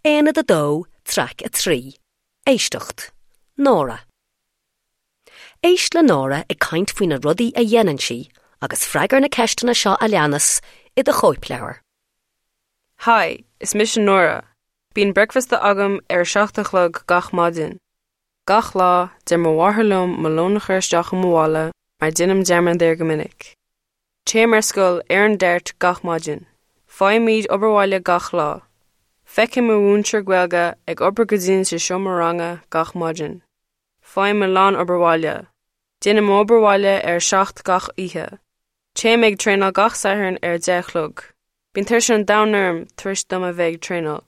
Aonad 2, Traic 3, Éisteacht, Nóra. Éist le Nóra ag caint faoi na rudaí a dhéanann sí agus freagair na ceisteanna seo a leanas i do chóipleabhar. Hi, is mise Nóra. Bíonn bricfeasta agam ar a 7 a chlog gach maidin. Gach lá, deir mo mháthair liom mo lón a chur isteach i mo mhála mar déanaim dearmad air go minic. Téim ar scoil ar an DART gach maidin. Faighimid obair bhaile gach lá. Feicim mo mhúinteoir Gaeilge ag obair go dian sa seomra ranga gach maidin. Faighim a lán obair bhaile. Déanaim m'obair bhaile ar a 7 gach oíche. Téim ag traenáil gach Satharn ar a 10 a chlog. Bíonn tuirse an domhain orm tar éis dom a bheith ag traenáil.